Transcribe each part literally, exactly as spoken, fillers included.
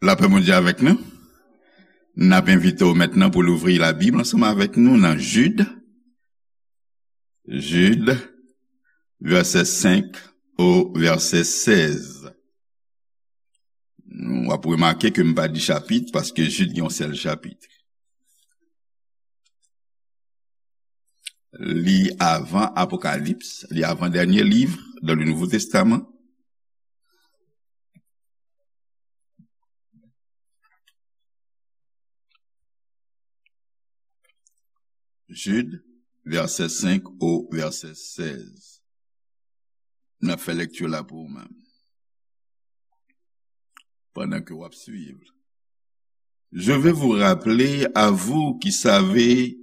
Lapè Bondye avèk nou. N ap envite w mentnan pou louvri Labib ansanm avèk nou nan Jid. Jid, vèsè senk o vèsè sèz. W ap remake ke m pa di chapit, paske Jid gen yon sèl chapit. Li avan Apokalips, li avan dènye liv dans le Nouveau Testament. Jid, vèsè senk o vèsè sèz. N ap fè lekti la pou ou menm. Pandan ke w ap swiv. Je veux vous rappeler, à vous qui savez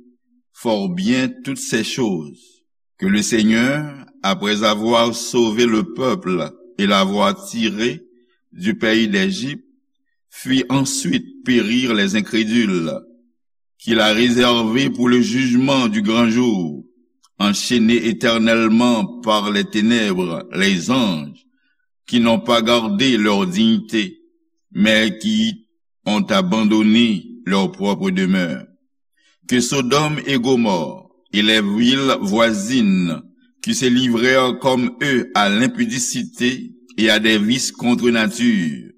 fort bien toutes ces choses, que le Seigneur, après avoir sauvé le peuple et l'avoir tiré du pays d'Égypte, fit ensuite périr les incrédules, qu'il a réservé pour le jugement du grand jour, enchaînés éternellement par les ténèbres, les anges, qui n'ont pas gardé leur dignité, mais qui ont abandonné leur propre demeure. Que Sodome et Gomorrhe et les villes voisines, qui se livrèrent comme eux à l'impudicité et à des vices contre nature,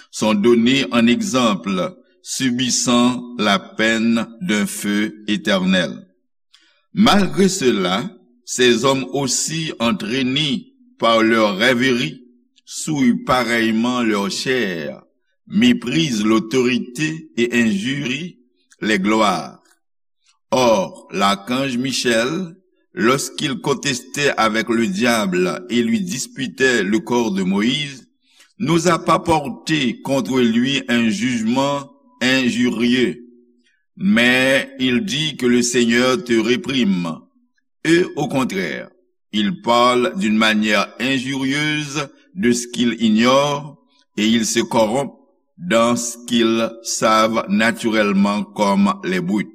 sont donnés en exemple, subissant la peine d'un feu éternel. Malgré cela, ces hommes aussi entraînés par leurs rêveries souillent pareillement leur chair, méprisent l'autorité et injurient les gloires. Or, l'archange Michel, lorsqu'il contestait avec le diable et lui disputait le corps de Moïse, n'osa pas porter contre lui un jugement injurieux. Mais il dit que le Seigneur te réprime. Eux, au contraire, ils parlent d'une manière injurieuse de ce qu'ils ignorent et ils se corrompent dans ce qu'ils savent naturellement comme les brutes.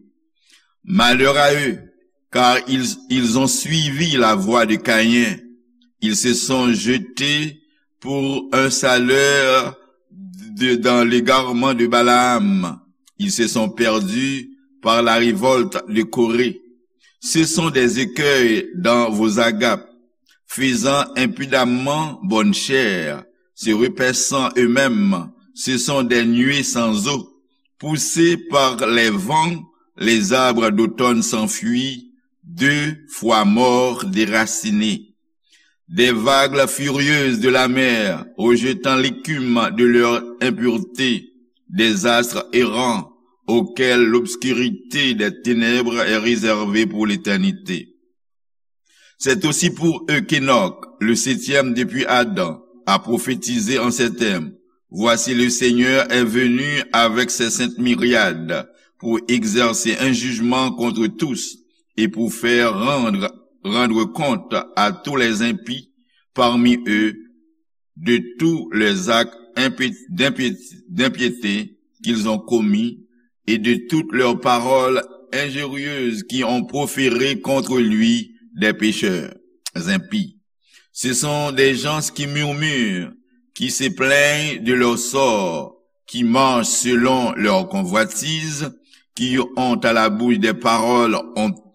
Malheur à eux, car ils, ils ont suivi la voie de Caïn. Ils se sont jetés pour un salaire de, dans l'égarement de Balaam. Ils se sont perdus par la révolte de Corée. Ce sont des écueils dans vos agapes, faisant impudemment bonne chère, se repaissant eux-mêmes, ce sont des nuées sans eau, poussés par les vents, les arbres d'automne sans fruits, deux fois morts, déracinés. Des vagues furieuses de la mer, rejetant l'écume de leur impureté, des astres errants, auxquels l'obscurité des ténèbres est réservée pour l'éternité. C'est aussi pour eux qu'Enoch, le septième depuis Adam, a prophétisé en ces termes : Voici, le Seigneur est venu avec ses saintes myriades pour exercer un jugement contre tous et pour faire rendre, rendre compte à tous les impies parmi eux de tous les actes d'impiété qu'ils ont commis et de toutes leurs paroles injurieuses qui ont proféré contre lui des pécheurs impies. Ce sont des gens qui murmurent, qui se plaignent de leur sort, qui marchent selon leurs convoitises, qui ont à la bouche des paroles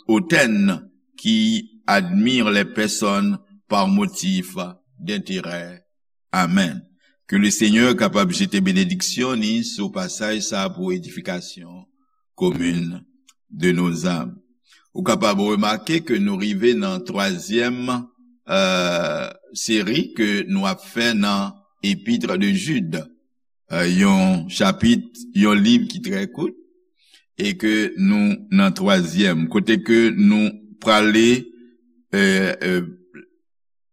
hautaines, qui admirent les personnes par motif d'intérêt. Amen. Ke le Senyè kapab jete benediksyon ni sou pasaj sa pou edifikasyon komin de nos âmes. Ou kapab remake ke nou rive nan twazyèm seri ke nou ap fè nan Epître de Jude. Yon chapit, yon liv ki trè kout, e ke nou nan twazyèm kote ke nou prale.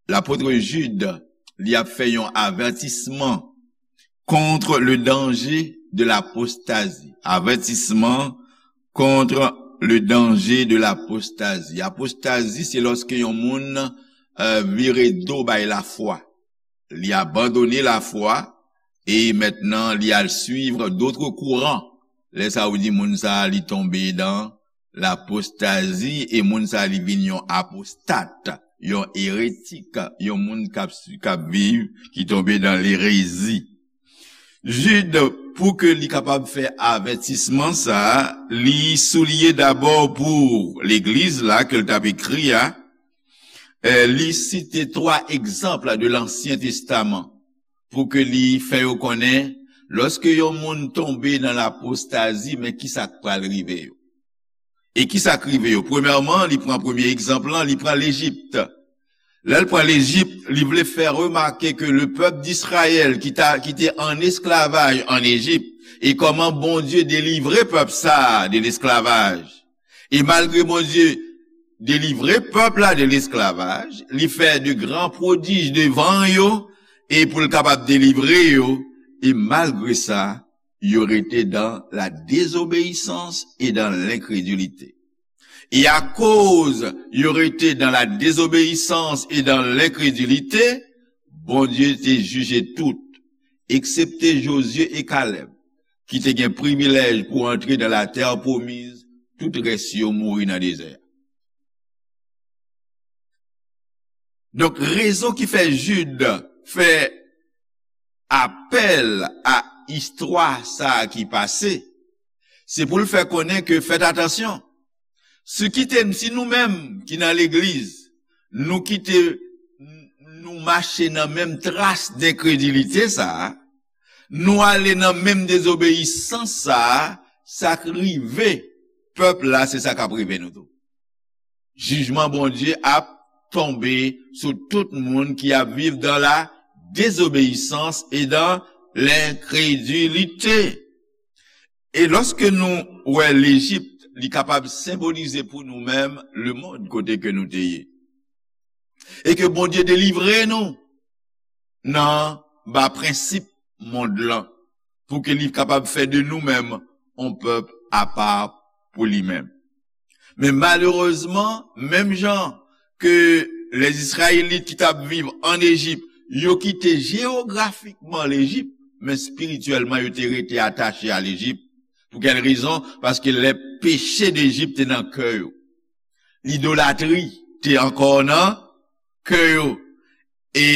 Lapot Jid, li ap fè yon avètisman contre le danger de l'apostasie. Avertissement contre le danger de l'apostasie. Apostazi se lòske yon moun vire do bay lafwa. Li abandone lafwa e mentnan li al suivre d'autres courants. Lè sa ou di moun sa li tonbe dan lapostazi e moun sa li vin yon apostat, yon eretik, yon moun k ap viv ki tonbe dan lerezi. Jid, pou ke li kapab fè avètisman sa a, li souliye dabò pou legliz la ke l t ap ekri a, eh, li site twa egzanp de Lansyen Testaman pou ke li fè yo konnen, lòske yon moun tonbe nan lapostazi, men kisa k pral rive yo. E kisa k rive yo? Premyèman, li pran premye egzanp lan, li pran Lejip. Lè l pran Lejip, li vle fè remake ke le pèp d'Izrayèl ki ta, ki te an esklavaj an Ejip, e kòman Bondye delivre pèp sa a de lesklavaj. E malgre Bondye delivre pèp la de lesklavaj, li fè de gran pwodij devan yo, e pou l kapab delivre yo, e malgre sa, yo rete dans la désobéissance et dans l'incrédulité. E akoz yo rete dans la désobéissance et dans l'incrédulité, Bondye te jije tout, eksepte Jozye e Kalèb, ki te gen privilèj pou antre dans la terre promise, tout rès yo mouri nan dezè a. Donk, rezon ki fè Jid fè apèl a istwa sa a ki pase, se pou l fè konnen ke, fèt atansyon, si kite, si nou menm ki nan legliz, nou kite, nou mache nan menm tras denkredilite sa a, nou ale nan menm dezobeyisans sa a, sa k rive pèp la, se sa k ap rive nou tou. Jijman Bondye ap tonbe sou tout moun ki ap viv dans la désobéissance et dans l'incrédulité. E lòske nou wè Lejip, li kapab senbolize pou nou menm lemonn kote ke nou te ye. E ke Bondye delivre nou nan ba prensip mond lan, pou ke li kapab fè de nou menm yon pèp apa pou li menm. Men malerezman, menm jan ke Lèzizrayelit ki t ap viv an Ejip, yo kite jewografikman Lejip, men espirityèlman yo te rete atache a Lejip. Pou kèl rezon? Paske lè peche Lejip te nan kè yo, lidolatri te ankò nan kè yo. E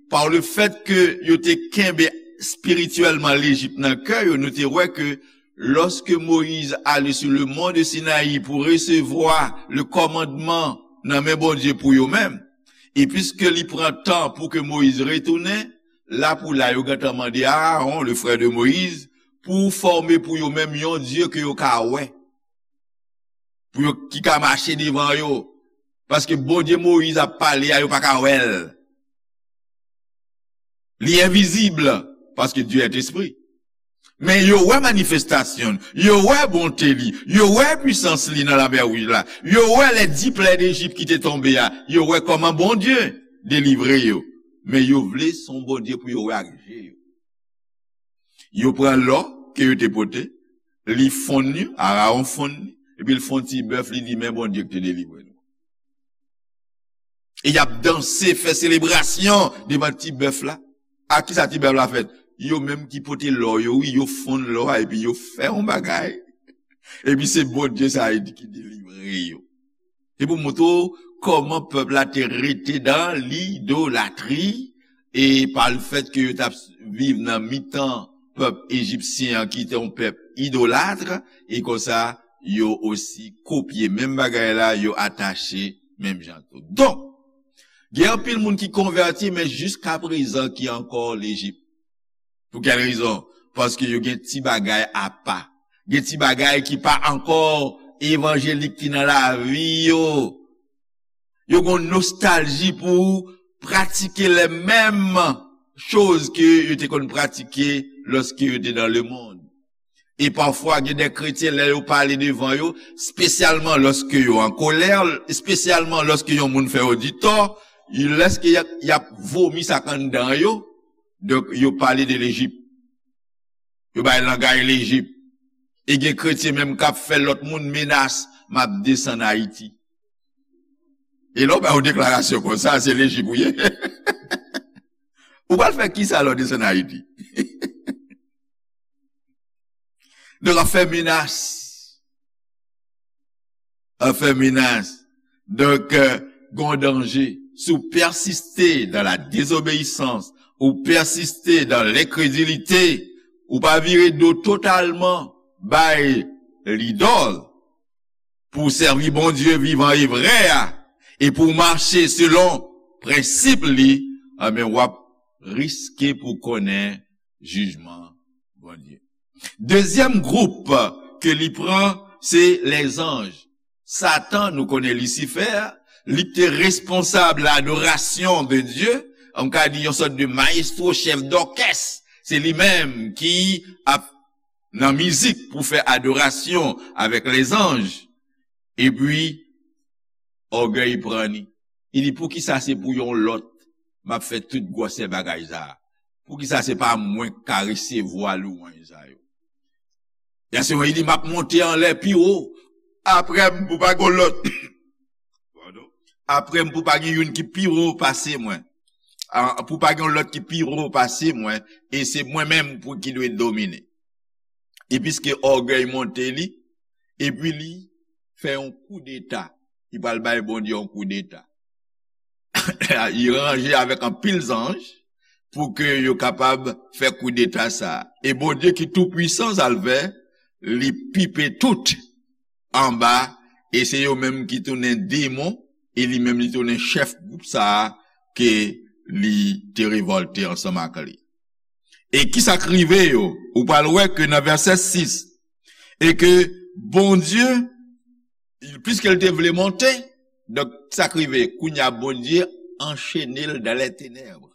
pa le fèt ke yo te kenbe espirityèlman Lejip nan kè yo, nou te wè ke lòske Moyiz ale sou le mont de Sinayi pou resevwa le kòmandman nan men Bondye pou yo menm, e piske li pran tan pou ke Moyiz retounen, la pou la yo gentan mande Aaron, le frè de Moyiz, pou fòme pou yo menm yon dye ke yo ka wè, pou yo, ki ka mache devan yo. Paske Bondye Moyiz ap pale a, yo pa ka wè l. Li envizib, paske Dye est esprit. Men yo wè manifestasyon l, yo wè bonte li, yo wè pwisans li nan Lamè Wouj la, yo wè lè dis plè Lejip ki te tonbe a, yo wè kòman Bondye delivre yo. Men yo vle se yon Bondye pou yo wè ak je yo. Yo pran lò ke yo te pote, li fonn li, Arawon fonn li, epi l fè yon ti bèf, li di, "Men Bondye ki te delivre nou." E y ap danse, fè selebrasyon devan ti bèf la. A kisa ti bèf la fèt? Yo menm ki pote lò yo, wi, yo fonn lò a, epi yo fè yon bagay. Epi se Bondye sa a ki delivre yo. Se pou montre w kòman pèp la te rete dan lidolatri, e pa le fèt ke yo t ap viv nan mitan pèp ejipsyen an ki te yon pèp idolat, e konsa yo osi kopye menm bagay la, yo atache menm jan tou. Donk, gen anpil moun ki konvèti, men jiska prezan ki ankò Lejip. Pou kèl rezon? Paske yo gen ti bagay apa. Gen ti bagay ki pa ankò evanjelik ki nan lavi yo. Yo gen yon nostalji pou pratike les mêmes choses ke yo te konn pratike lòske yo te dans le monde. E pafwa, gen de kretyen, lè yo pale devan yo, espesyalman lòske yo an kolè, espesyalman lòske yon moun fè yo di tò, lèske y ap, y ap vomi sa k anndan yo, donk, yo pale de Lejip. Yo bay langay Lejip. E gen kretyen menm k ap fè lòt moun menas, "M ap desann Ayiti." E lè w bay yon deklarasyon konsa, se Lejip ou ye. Ou pral fè kisa lè w desann Ayiti? Donk, ap fè menas. Ap fè menas. Donk, euh, gon danje. Si w pèsiste dans la désobéissance, ou pèsiste dans l'incrédulité, ou pa vire do totalman bay lidòl, pou w sèvi Bondye vivan e vrè a, e pou w mache selon prensip li, anben, w ap riske pou konnen jijman Bondye. Dezyèm gwoup ke li pran, se lèzanj. Satan, nou konnen Lisifè, li te responsab ladorasyon de Dye, m ka di yon sòt de mayestwo, chèf dòkès. Se li menm ki ap nan mizik pou fè adorasyon avèk lèzanj. Epi, ògèy pran li. Li di, "Poukisa se pou yon lòt m ap fè tout gwòsè bagay sa a? Poukisa se pa mwen k ka resevwa lwanj sa yo?" Vèsè wan, li di, "M ap monte anlè pi wo. Apre m, pou pa gen lòt." Padon. "Apre m, pou pa gen youn ki pi wo pase mwen. A, pou pa gen lòt ki pi wo pase mwen. E se mwen menm pou ki dwe domine." E piske ògèy monte li, epi li fè yon koudeta. Li pral bay Bondye yon koudeta. Li ranje avèk anpil zanj pou ke yo kapab fè koudeta sa a. E Bondye ki tou pwisan, sa l fè, li pipe tout anba, e se yo menm ki tounen demon, e li menm li tounen chèf gwoup sa a ke li te revòlte ansanm ak li. E kisa k rive yo? Ou pral wè ke nan vèsè sis, e ke Bondye, piske l te vle monte, donk, sa k rive? Kounye a, Bondye anchene l dans les ténèbres.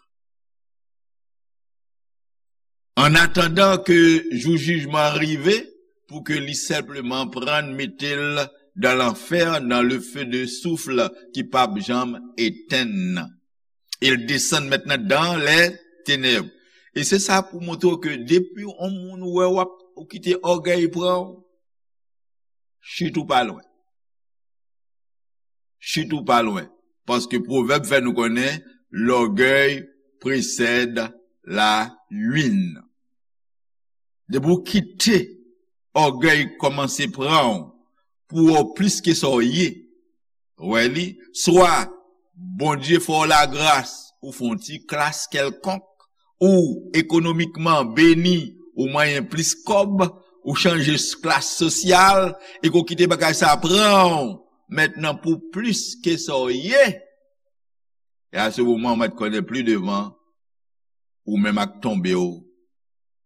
An atandan ke jou jijman an rive, pou ke li senpleman pran l, mete l dans l'enfer, dans le feu de soufre ki p ap janm etenn nan. E l desann mentnan dans les ténèbres. E se sa pou montre w ke depi yon moun wè w ap, ou kite ògèy pran w, chit ou pa lwen. Chit ou pa lwen. Paske pwovèb fè nou konnen, l'orgueil précède la ruine. Depi w kite ògèy kòmanse pran w pou w plis ke sa w ye, wè li, swa Bondye fè w lagras, ou fè yon ti klas kèlkonk, ou ekonomikman beni, ou manyen plis kòb, ou chanje s-, klas sosyal, e ke w kite bagay sa pran w mentnan pou plis ke sa w ye, e a se moman w mèt konnen pli devan, ou menm ak tonbe w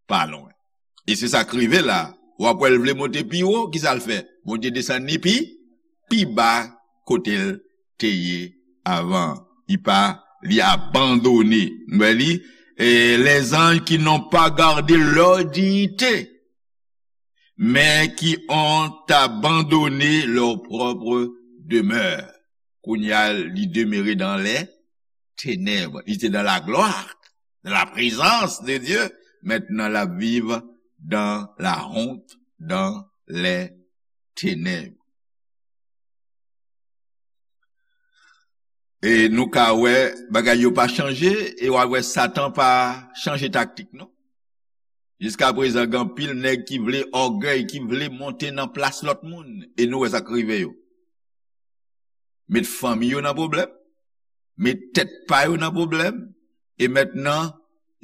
pa lwen. E se sa k rive la. W ap wè l vle monte pi wo, kisa l fè? Bondye desann li pi, pi ba kote l te ye avan. Li pa, li abandone. Nou wè li, eh, les anges qui n'ont pas gardé leur dignité, mais qui ont abandonné leur propre demeure. Kounye a, li demere dans les ténèbres. Li te dans la gloire, dans la présence de Dieu. Mentnan, l ap viv dans la honte, dans les ténèbres. E nou ka wè bagay yo pa chanje, e w a wè Satan pa chanje taktik, non. Jiskaprezan, gen anpil nèg ki vle ògèy, ki vle monte nan plas lòt moun, e nou wè sa k rive yo. Met fanmi yo nan pwoblèm, met tèt pa yo nan pwoblèm, e mentnan,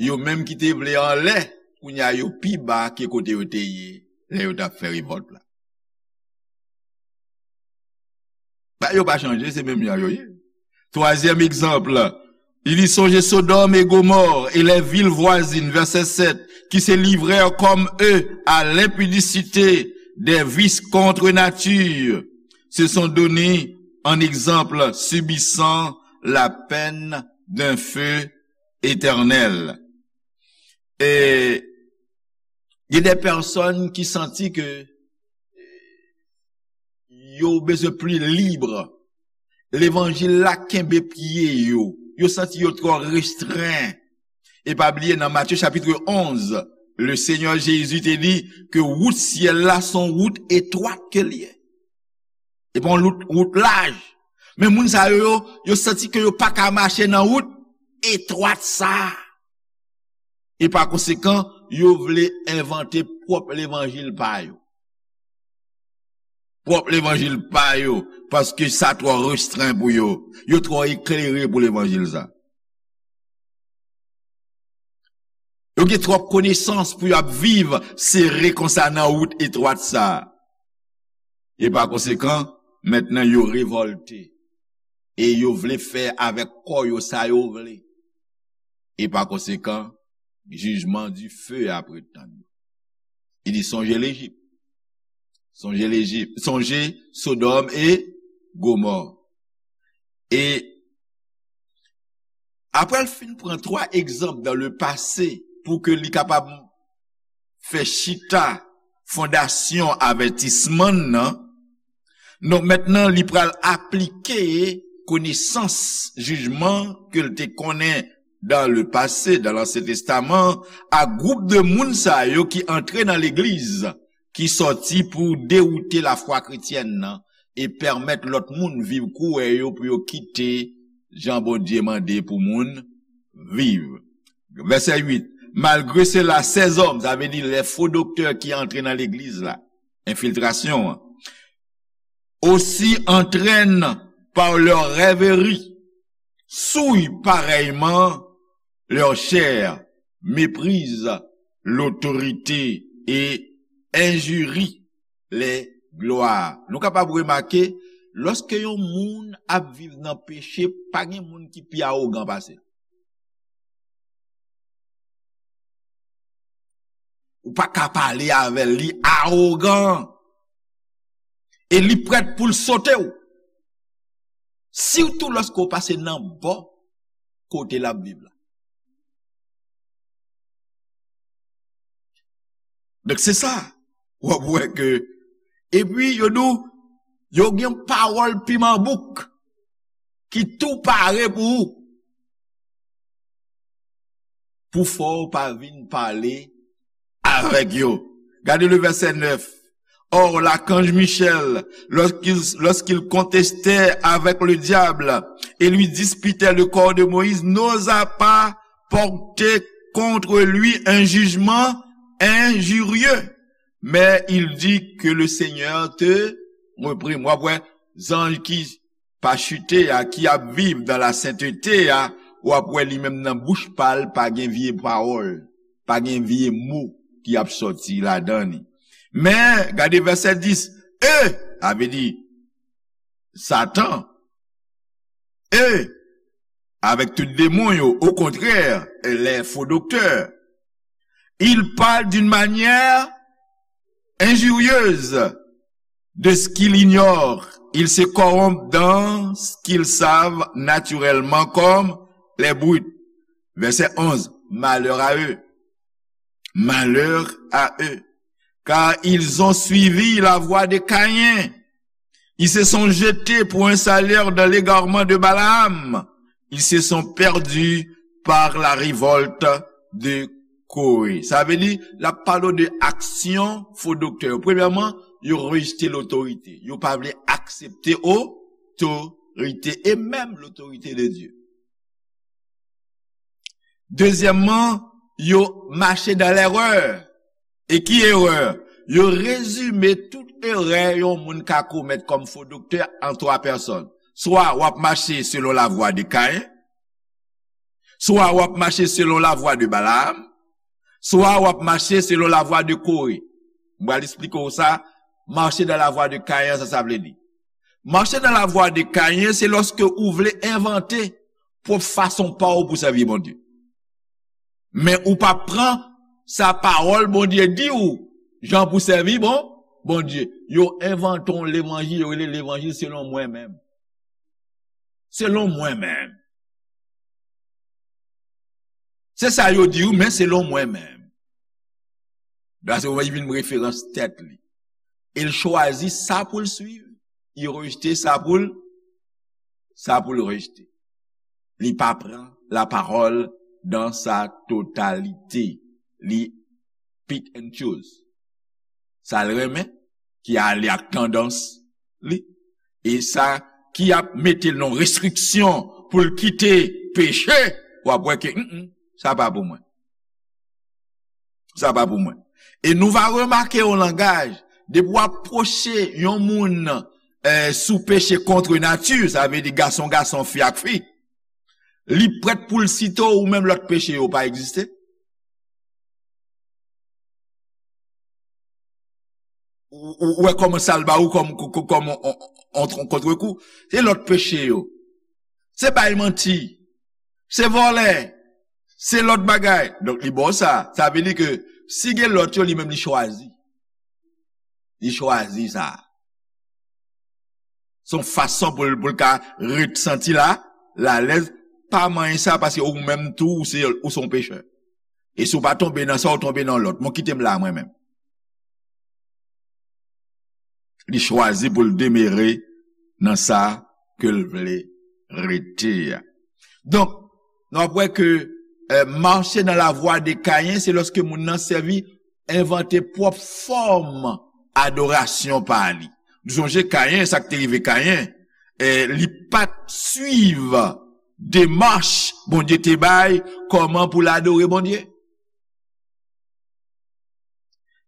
yo menm ki te vle anlè, kounye a yo pi ba ke kote yo te ye lè yo t ap fè revòlt la. Ba yo pa chanje, se menm jan yo ye. Twazyèm egzanp, il y songe Sodome et Gomorrhe et les villes voisines, verset sept, qui se livrèrent comme eux à l'impudicité, des vices contre nature, se sont donné en exemple, subissant la peine d'un feu éternel. E gen de pèsòn ki santi ke yo bezwen pli lib. Levanjil la kenbe pye yo. Yo santi yo twò restren. E pa bliye, nan Matye chapitre onze, le Seigneur Jésus te di ke wout syèl la se yon wout etwat ke l ye. E pa yon wout, wout laj. Men moun sa yo, yo, yo santi ke yo pa ka mache nan wout etwat sa a. E pa konsekan, yo vle envante pwòp levanjil pa yo. Pwòp levanjil pa yo, paske sa twò restren pou yo. Yo twò eklere pou levanjil sa. Yo gen twòp konesans pou yo ap viv sere konsa nan wout etwat sa a. E pa konsekan, mentnan yo revòlte. E yo vle fè avèk kò yo sa yo vle. E pa konsekan, jijman dife ap ret tann yo. Li di, sonje Lejip. Sonje Lejip. Sonje Sodòm e Gomò. E apre l fin pran twa egzanp dans le passé pou ke li kapab fè chita fondasyon avètisman nan, donk mentnan li pral aplike konesans jijman ke l te konnen dans le passé, dans l'Ancien Testament, a gwoup de moun sa yo ki antre nan legliz, ki sòti pou dewoute lafwa kretyèn nan e pèmèt lòt moun viv kouwè yo pou yo kite jan Bondye mande pou moun viv. Vèsè uit, malgre sela, ces hommes, sa vle di lè fo doktè ki antre nan legliz la, enfiltrasyon an, aussi entraînent par leurs rêveries, souillent pareillement leur chair, méprisent l'autorité et injurient les gloires. Nou kapab remake, lòske yon moun ap viv nan peche, pa gen moun ki pi awogan pase l. Ou pa ka pale avè l, li awogan. E li prèt pou l sote w. Sitou lòske w pase nan bò kote l ap viv la. Donk se sa, w ap wè ke, epi yo di w, yo gen pawòl piman bouk ki tou pare pou ou. Pou fè w pa vin pale avèk yo. Gade le verset neuf. Or, l'archange Michel, lorsqu'il, lorsqu'il contestait avec le diable et lui disputait le corps de Moïse, n'osa pas porter contre lui un jugement injurieux. Mais il dit que le Seigneur te reprime. W ap wè zanj ki pa chite a, ki ap viv dans la sainteté a, w ap wè li menm nan bouch pa l, pa gen vye pawòl, pa gen vye mo ki ap sòti ladan li. Men, gade vèsè dis, e, sa vle di, Satan, e, avec tout démon yo, au contraire, les faux docteurs, ils parlent d'une manière injurieuse de ce qu'ils ignorent. Ils se corrompent dans ce qu'ils savent naturellement comme les brutes. Verset onze. Malheur à eux. Malheur à eux. Car ils ont suivi la voie de Caïn. Ils se sont jetés pour un salaire dans l'égarement de Balaam. Ils se sont perdus par la révolte de Coré. Sa vle di, l ap pale de aksyon fo doktè yo. Premyèman, yo rejte lotorite. Yo pa vle aksepte otorite e menm lotorite de Dye. Dezyèmman, yo mache dans l'erreur. E ki erè? Yo rezime tout erè yon moun ka komèt kòm fo doktè an twa pèsòn. Swa w ap mache selon lavwa de Kayen, swa w ap mache selon lavwa de Balaam, swa w ap mache selon lavwa de Kore. M pral eksplike w sa, mache dans la voie de Kayen, sa sa vle di. Mache dans la voie de Kayen, se lòske ou vle envante pwòp fason pa w pou sèvi Bondye. Men ou pa pran sa pawòl Bondye di w, jan pou sèvi bon, Bondye. Yo envante yon levanjil, yo rele levanjil selon mwen menm. Selon mwen menm. Se sa yo di w, men selon mwen menm. Dwa se w vin referans tèt li. E l chwazi sa pou l swiv, li rejte sa pou l, sa pou l rejte. Li pa pran la parole dans sa totalité. Li pick and choose. Sa l renmen, ki ale ak tandans li. E sa ki ap mete l nan restriksyon pou l kite peche, w ap wè ke, mm, mm, sa pa pou mwen. Sa pa pou mwen. E nou va remake yon langaj, depi w apwoche yon moun, eh, sou peche kont nati, sa vle di gason gason, fi ak fi, li prèt pou l site w, ou menm lòt peche yo pa egziste. Ou, ou, ou wè kòman sa l ba ou kòm, kòm, kòm on, on, on, on kontrekou. Se lòt peche yo. Se bay manti. Se vòlè. Se lòt bagay. Donk, li ba w sa. Sa vle di ke si gen lòt yo, li menm li chwazi. Li chwazi sa. Se yon fason pou l, pou l ka ret santi la, l alèz, pa manyen sa, paske ou menm tou, ou se, ou se yon pechè. E si w pa tonbe nan sa, ou tonbe nan lòt. Mwen kite m la, mwen menm. Li chwazi pou l demere nan sa ke l vle rete a. Donk, nou ap wè ke, eh, mache nan lavwa de Kayen, se lòske moun nan sèvi, envante pwòp fòm adorasyon pa li. Nou sonje Kayen, sa k te rive Kayen, eh, li pa t swiv demach Bondye te bay, kòman pou l adore Bondye.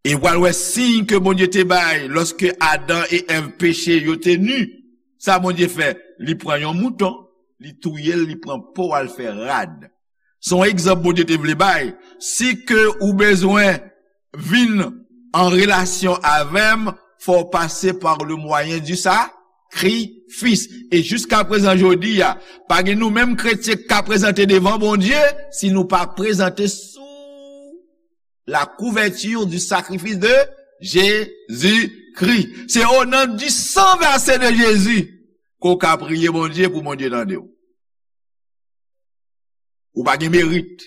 E w pral wè siy ke Bondye te bay lòske Adan e Èv peche, yo te ni. Sa Bondye fè? Li pran yon mouton, li touye l, li pran po a, l fè rad. Se yon egzanp Bondye te vle bay. Si ke ou bezwen vin an relasyon avè m, fò w pase par le moyen du sacrifice. E jiska prezan jodi a, pa gen nou menm kretyen k ka prezante devan Bondye si nou pa prezante sou la couverture du sacrifice de Jésus-Christ. Se o non du sang versé de Jésus ke w ka priye Bondye pou Bondye tande w. Ou pa gen merit.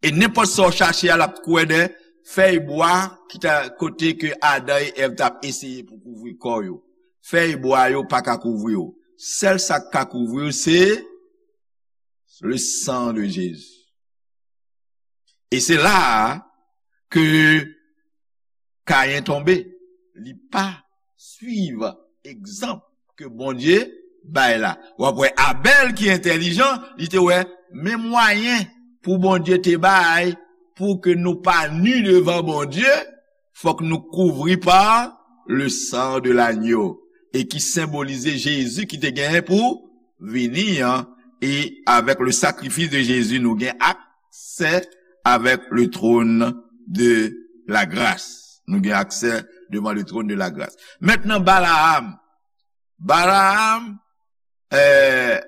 E nenpòt sa w chache a, l ap kwè de fèy bwa ki ta kote ke Adan e Èv t ap eseye pou kouvri kò yo. Fèy bwa yo pa ka kouvri w. Sèl sa k ka kouvri w, se le sang de Jésus. E se la a ke Kayen tonbe. Li pa swiv egzanp ke Bondye bay la. W ap wè Abèl ki entèlijan, li te wè men mwayen pou Bondye te bay pou ke nou pa ni devan Bondye, fòk nou kouvri pa le sang de l'agneau, e ki senbolize Jezi ki te genyen pou vini an, e avèk le sacrifice de Jésus, nou gen aksè avèk le trône de la grâce. Nou gen aksè devan le trône de la grâce. Mentnan, Balaam. Balaam, eh,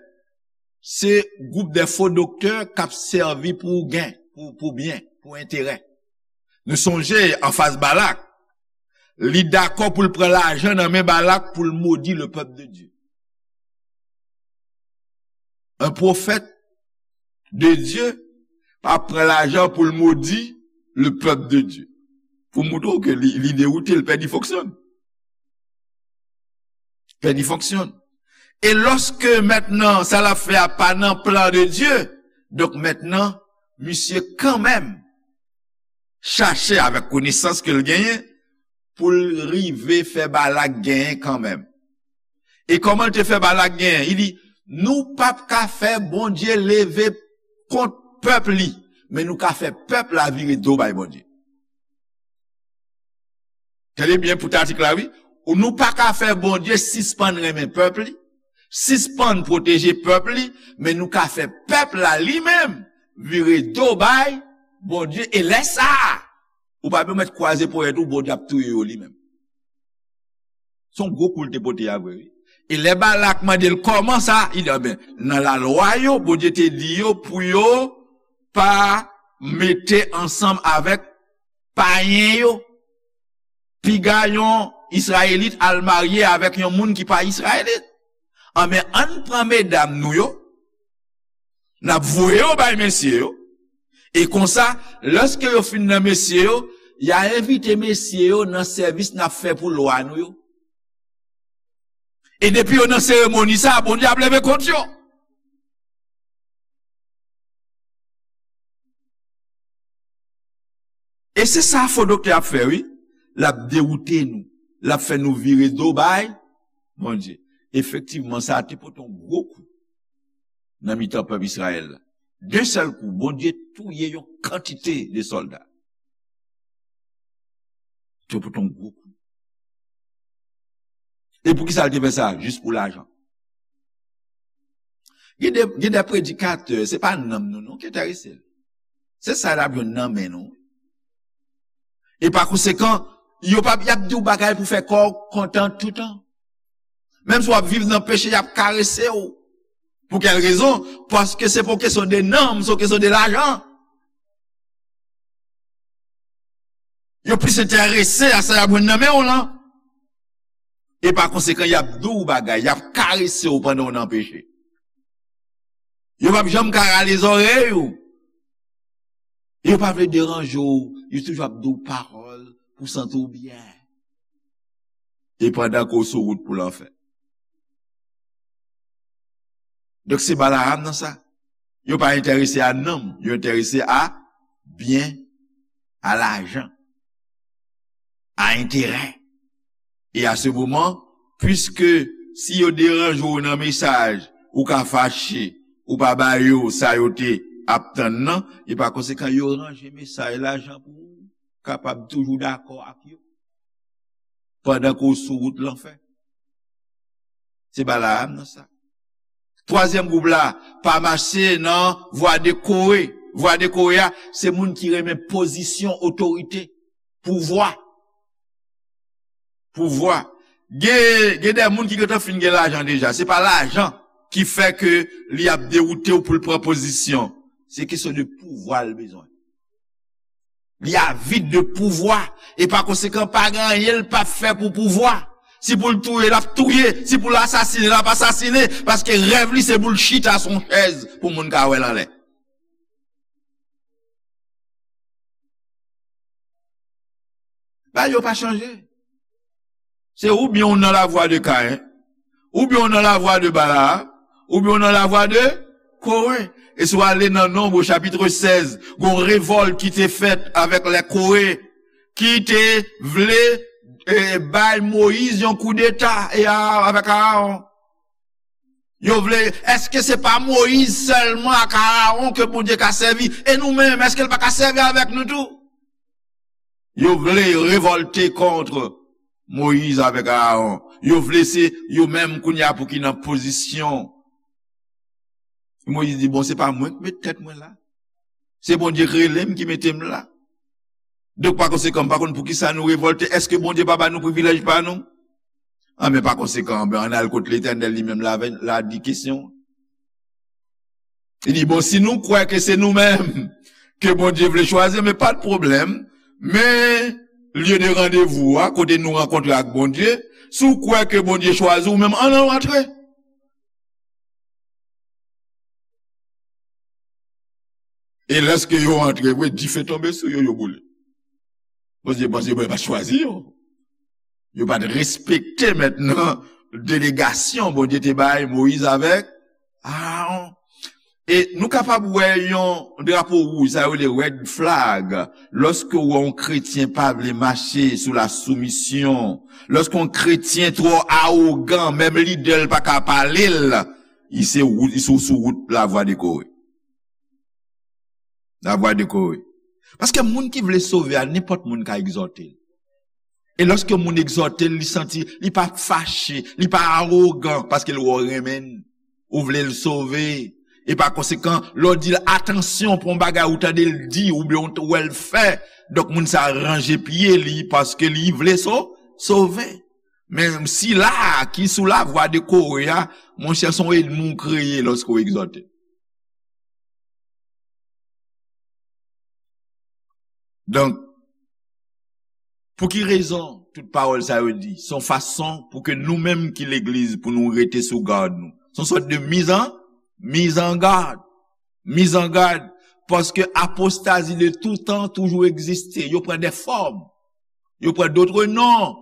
se gwoup de fo doktè k ap sèvi pou gen, pou, pou byen, pou enterè. Nou sonje anfas Balak, li dakò pou l pran lajan nan men Balak pou l modi le pèp de Dye. Un prophète de Dieu pa pran lajan pou l modi le pèp de Dye. Pou montre w ke li, li dewoute, l pèdi fonksyon. Pèdi fonksyon. E lòske mentnan sa l ap fè a pa nan plan de Dye, donk mentnan, misye kanmenm chache avèk konesans ke l genyen pou l rive fè Balak genyen kanmenm. E kòman l te fè Balak genyen? Li di, nou p ap ka fè Bondye leve kont pèp li, men nou ka fè pèp la vire do bay Bondye. Tande byen pou tatik la, wi. Ou nou pa ka fè Bondye sispann renmen pèp li, sispann pwoteje pèp li, men nou ka fè pèp la li menm vire do bay Bondye. E lè sa a, ou pa bezwen mèt kwaze ponyèt ou, Bondye ap touye yo li menm. Se yon gwo kou l te pote a vre, wi. E lè Balak mande l kòman sa, li di, "Anben, nan lalwa yo, Bondye te di yo pou yo pa mete ansanm avèk payen yo. Piga yon Izrayelit al marye avèk yon moun ki pa Izrayelit. Anben, ann pran medam nou yo, n ap voye yo bay mesye yo. E konsa, lòske yo fin nan mesye yo, y a envite mesye yo nan sèvis n ap fè pou lwa nou yo. E depi yo nan seremoni sa a, Bondye ap leve kont yo." E se sa fo doktè ap fè, wi. L ap dewoute nou. L ap fè nou vire do bay Bondye. Efektivman, sa a te pote yon gwo kou nan mitan pèp Izrayèl la. D'un sèl kou, Bondye touye yon kantite de sòlda. Te pote yon gwo kou. E poukisa l te fè sa? Jis pou lajan. Gen de, gen de predikatè, se pa nanm nou non ki enterese l. Se sa l ap jwenn nan men nou. E pa konsekan, Yo p ap, y ap di w bagay pou fè kò w kontan toutan. Menm si w ap viv nan peche, y ap karese w. Pou kèl rezon? Paske se pa yon kesyon de nanm, se yon kesyon de lajan. Yo plis enterese a sa y ap jwenn nan men w lan. E pa konsekan, y ap di w bagay, y ap karese w pandan w nan peche. Yo p ap janm ka rale zòrèy ou. Yo pa vle deranje w, yo toujou ap di w pawòl pou w santi w byen. E pandan ke w sou wout pou lanfè. Donk se Balaam nan sa. Yo pa enterese a nanm, yo enterese a byen, a lajan, a enterè. E a se moman, piske si yo deranje w nan mesaj, ou ka fache, ou pa ba yo sa yo te ap tann nan, e pa konsekan yo ranje mesaj lajan pou ou kapab toujou dakò ak yo. Pandan ke w sou wout lanfè. Se Balaam nan sa. Twazyèm gwoup la, pa mache nan vwa de Kore. Vwa de Kore a, se moun ki renmen pozisyon otorite, pouvwa. Pouvwa. Gen, gen de moun ki gentan fin gen lajan deja. Se pa lajan ki fè ke li ap dewoute w pou l pran pozisyon. Se kesyon de pouvwa l bezwen. Li avid de pouvwa. E pa konsekan, pa gen anyen l p ap fè pou pouvwa. Si pou l touye, l ap touye. Si pou l asasine, l ap asasine. Paske rèv li, se pou l chita sou yon chèz pou moun ka wè l anlè. Bagay yo pa chanje. Se oubyen w nan lavwa de Kayen, oubyen w nan lavwa de Balaam, oubyen w nan lavwa de Kore. E si w ale nan Nonb, chapit sèz, gon revòlt ki te fèt avèk lè Kore, ki te vle, e, bay Moyiz yon koudeta e a, avèk Arawon. Yo vle, èske se pa Moyiz sèlman ak Arawon ke Bondye ka sèvi? E nou menm, èske l pa ka sèvi avèk nou tou? Yo vle revòlte kont Moyiz avèk Arawon. Yo vle se yo menm kounye a pou ki nan pozisyon. Moyiz di, "Bon, se pa mwen ki met tèt mwen la. Se Bondye k rele m, ki mete m la. Donk, pa konsekan, m pa konn poukisa nou revòlte. Èske Bondye pa ba nou privilèj pa nou?" Anben, pa konsekan, anben, ann al kot Letènèl li menm la, la di kesyon. Li di, "Bon, si nou kwè ke se nou menm ke Bondye vle chwazi, men pa de pwoblèm. Men lye de randevou a, kote nou rankontre ak Bondye, si w kwè ke Bondye chwazi w menm, ann al antre." E lèske yo antre vre, dife tonbe sou yo, yo boule. Bondye, Bondye, Bondye pa t chwazi yo. Yo pa t respekte mentnan delegasyon Bondye te bay Moyiz avèk Arawon. E nou kapab wè yon drapo wouj, sa yo rele red flag, lòske w wè yon kretyen pa vle mache sou la soumisyon, lòske yon kretyen twò awogan, menm lidè l pa ka pale l, li se wout, li sou, sou wout lavwa de Kore. Lavwa de Kore. Paske moun ki vle sove a, nenpòt moun ka egzòte l. E lòske moun egzòte l, li santi, li pa fache, li pa awogan, paske l wè w renmen l, ou vle l sove. E pa konsekan, lè w di l atansyon pou yon bagay ou tande l di, oubyen ou t-, wè l fè, donk moun sa a ranje pye li, paske li vle so-, sove. Men sila a ki sou lavwa de Kore a, monchè, se yon ènmi w kreye lòske w egzòte. Donk, pou ki rezon tout pawòl sa yo di? Se yon fason pou ke nou menm ki legliz, pou nou rete sou gad nou. Se yon sòt de mizan, mizangad. Mizangad. Paske apostazi de tout tan toujou egziste. Yo pran de fòm. Yo pran dòt non.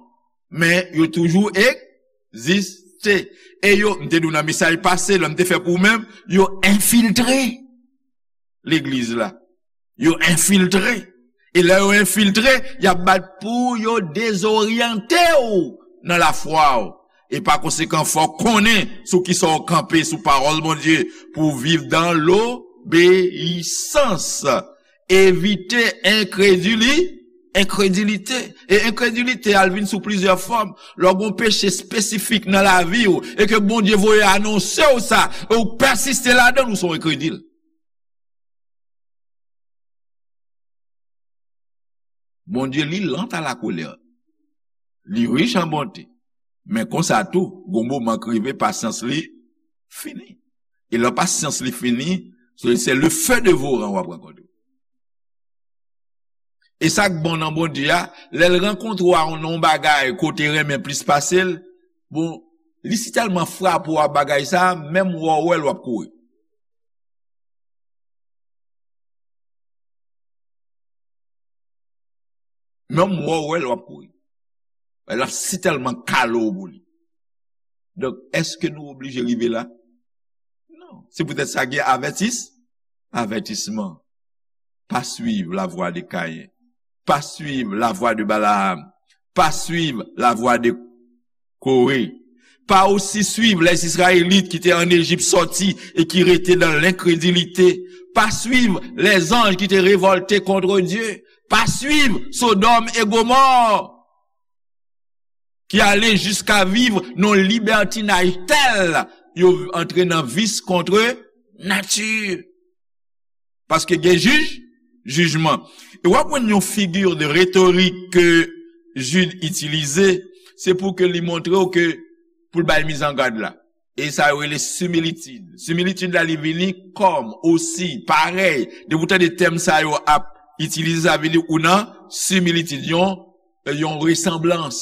Men yo toujou egziste. E yo, m te di w nan mesaj pase, lè m te fè pou ou menm, yo enfiltre legliz la. Yo enfiltre. E lè yo enfiltre, y ap bat pou yo dezoryante w nan lafwa w. E pa konsekan, fò w konnen sou kisa w kanpe, sou pawòl Bondye, pou w viv dan lobeyisans. Evite enkredili-, enkredilite. E enkredilite a, l vin sou plizyè fòm. Lè w gen yon peche espesifik nan lavi w, e ke Bondye voye anonse w sa, e w pèsiste ladan l, ou se yon enkredil. Bondye, li lent à la colère. Li rich an bonte. Men konsa tou, gon moman k rive, pasyans li fini. E lè pasyans li fini, se, se le feu dévorant w ap rankontre. E sa k bon nan Bondye a, lè l rankontre w a nan yon bagay kote renmen plis pase l, bon, li si tèlman frape w a bagay sa, menm wè w wè l w ap kouri. Menm wè w wè l w ap kouri. L ap si tèlman kale w pou li. Donk, èske nou oblije rive la? Non. Se poutèt sa gen avètis, avètisman. Pa suiv la voie de Caïn. Pa suiv la voie de Balaam. Pa suiv la voie de Coré. Pa aussi suivre les Israélites qui étaient en Égypte sortis et qui restaient dans l'incrédulité. Pa suivre les anges qui étaient révoltés contre Dieu. Pa suivre Sodome et Gomorrhe, ki ale jiska viv nan libertinaj tèl yo antre nan vis kont nati. Paske gen jij, jijman. E w ap wè yon figi de retorik ke Jid itilize, se pou ke li montre w ke pou l bay mizangad la. E sa yo rele similitid. Similitid la, li vini kòm, osi, parèy. Depi w tande tèm sa yo ap itilize, sa vle di ou nan similitid, yon, yon resanblans.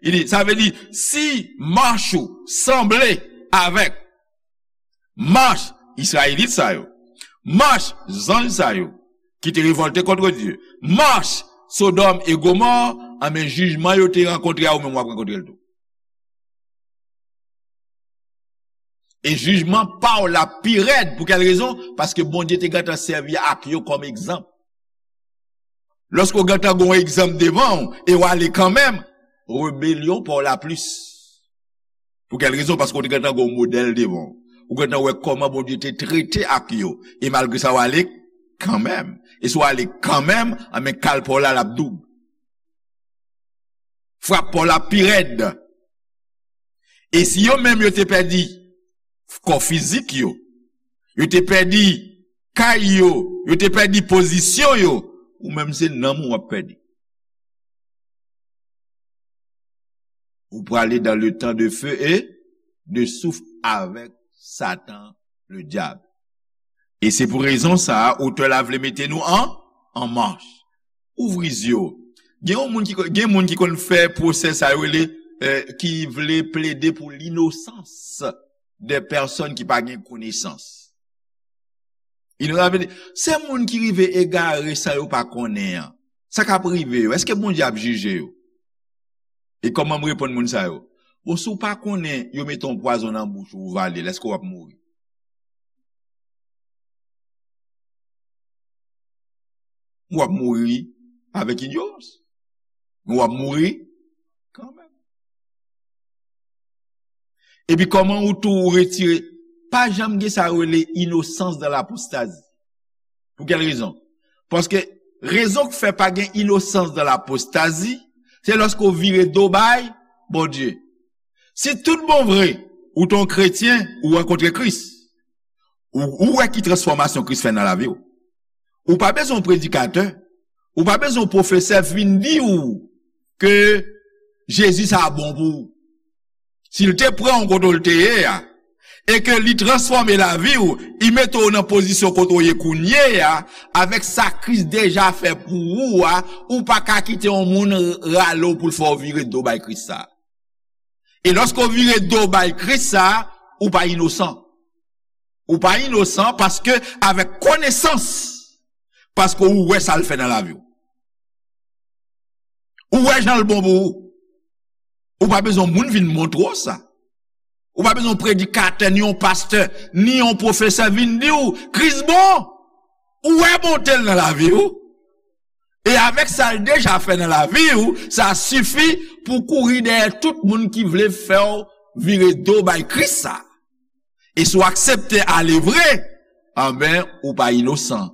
Li di, sa vle di, si mach ou sanble avèk mach Izrayelit sa yo, mach zanj sa yo, ki te revòlte kont Dye, mach Sodòm e Gomò, anben jijman yo te rankontre a, ou menm w ap rankontre l tou. E jijman pa w la pi rèd. Pou kèl rezon? Paske Bondye te gentan sèvi ak yo kòm egzanp. Lòske w gentan gen yon egzanp devan w e w ale kanmenm, rebelyon pa w la plis. Pou kèl rezon? Paske w te gentan gen yon modèl devan w. Ou gentan wè kòman Bondye te trete ak yo. E malgre sa, w ale kanmenm. E si w ale kanmenm, anben kal pa w la, l ap doub. Frap pa w la pi rèd. E si yo menm yo te pèdi kò fizik yo, yo te pèdi kay yo, yo te pèdi pozisyon yo, ou menm se nanm ou w ap pèdi. Ou prale dans le temps de feu et de souf avèk Satan, le diab. E se pou rezon sa a, otè la vle mete nou an, an mach. Ouvri zye w. Gen yon moun ki, gen moun ki konn fè pwosè sa yo rele, eh, ki vle plede pou l'innocence des personnes ki pa gen konesans. Inosan, se moun ki rive egare san yo pa konnen an. Sa k ap rive yo? Èske Bondye ap jije yo? E kòman m reponn moun sa yo? Bon, si w pa konnen, yo mete yon pwazon nan bouch ou, ou vale l, èske w ap mouri? W ap mouri avèk inyorans. Men w ap mouri kanmenm. Epi kòman ou tou ou retire, pa janm gen sa yo rele inosans dan lapostazi. Pou kèl rezon? Paske rezon k fè pa gen inosans dan lapostazi, se lòske w vire do bay Bondye. Si tout bon vre, ou te yon kretyen, ou rankontre Kris, ou, ou wè ki transfòmasyon Kris fè nan lavi w. Ou pa bezwen yon predikatè, ou pa bezwen yon pwofesè vin di w ke Jezi sa bon pou ou. Si l te pran w kote w te ye a, e ke li transfòme lavi w, li mete w nan pozisyon kote w ye kounye a, avèk sa Kris deja fè pou ou a, ou pa ka kite yon moun rale w pou l fè w vire do bay Kris sa. E lòske w vire do bay Kris sa, ou pa inosan. Ou pa inosan paske avèk konesans, paske ou wè sa l fè nan lavi w. Ou wè jan l bon pou ou. Ou pa bezwen moun vin montre w sa. Ou pa bezwen yon predikatè, ni yon pastè, ni yon pwofesè vin di w, Kris bon. Ou wè bonte l nan lavi w. E avèk sa l deja fè nan lavi w, sa sifi pou w kouri dèyè tout moun ki vle fè w vire do bay Kris sa. E si w aksepte ale vre, anben, ou pa inosan.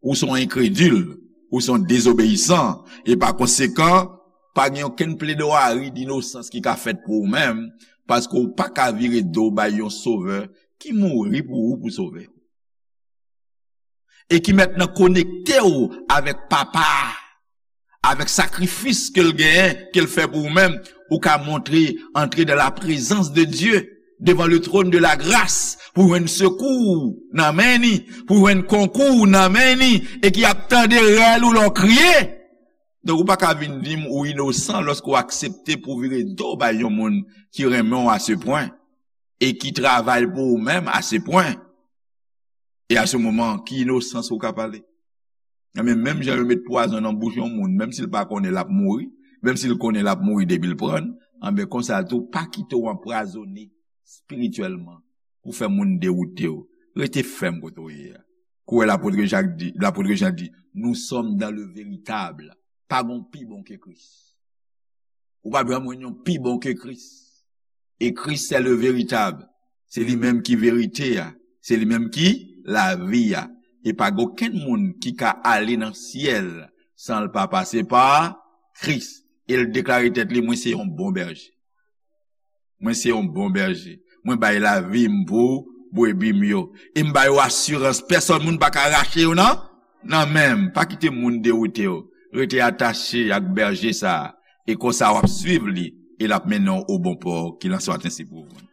Ou se yon enkredil, ou se yon dezobeyisan, e pa konsekan, pa gen okenn pledwari dinosans ki ka fèt pou ou menm, paske w pa ka vire do bay yon Sovè ki mouri pou ou, pou sove w. E ki mentnan konekte w avèk Papa a, Avèk sakrifis ke l genyen, ke l fè pou ou menm, ou ka montre, antre dans la présence de Dieu, devant le trône de la grâce, pou jwenn sekou nan men ni, pou jwenn konkou nan men ni, e ki ap tande rèl ou lè w kriye. Donk, ou pa ka vin di m ou inosan lòske w aksepte pou w vire do bay yon moun ki renmen w a se pwen, e ki travay pou ou menm a se pwen. E a se moman, ki inosans ou ka pale? Enben, menm jan yo met pwazon nan bouch yon moun, menm si l pa konnen l ap mouri, menm si l konnen l ap mouri depi l pran l, enben, konsa tou, pa kite w anpwazone espirityèlman pou fè moun dewoute w. Rete fèm kote w ye a. Kouwè lapot Jak di, lapot Jan di, nous sommes dans le véritable. Pa gon pi bon ke Kris. Ou pa p janm jwenn yon pi bon ke Kris. E Kris, c'est le véritable. Se li menm ki verite a. Se li menm ki lavi a. E pa gen okenn moun ki ka ale nan syèl san l pa pase pa Kris. E l deklare tèt li, mwen se yon bon bèje. Mwen se yon bon bèje. Mwen bay lavi m pou brebi m yo. E m ba yo asirans, pèsòn moun pa ka rache yo nan, nan men m. Pa kite moun dewoute w. Rete atache ak bèje sa a. E konsa w ap swiv li. E l ap mennen w o bon pò. Ki l an swa ensi pou ou.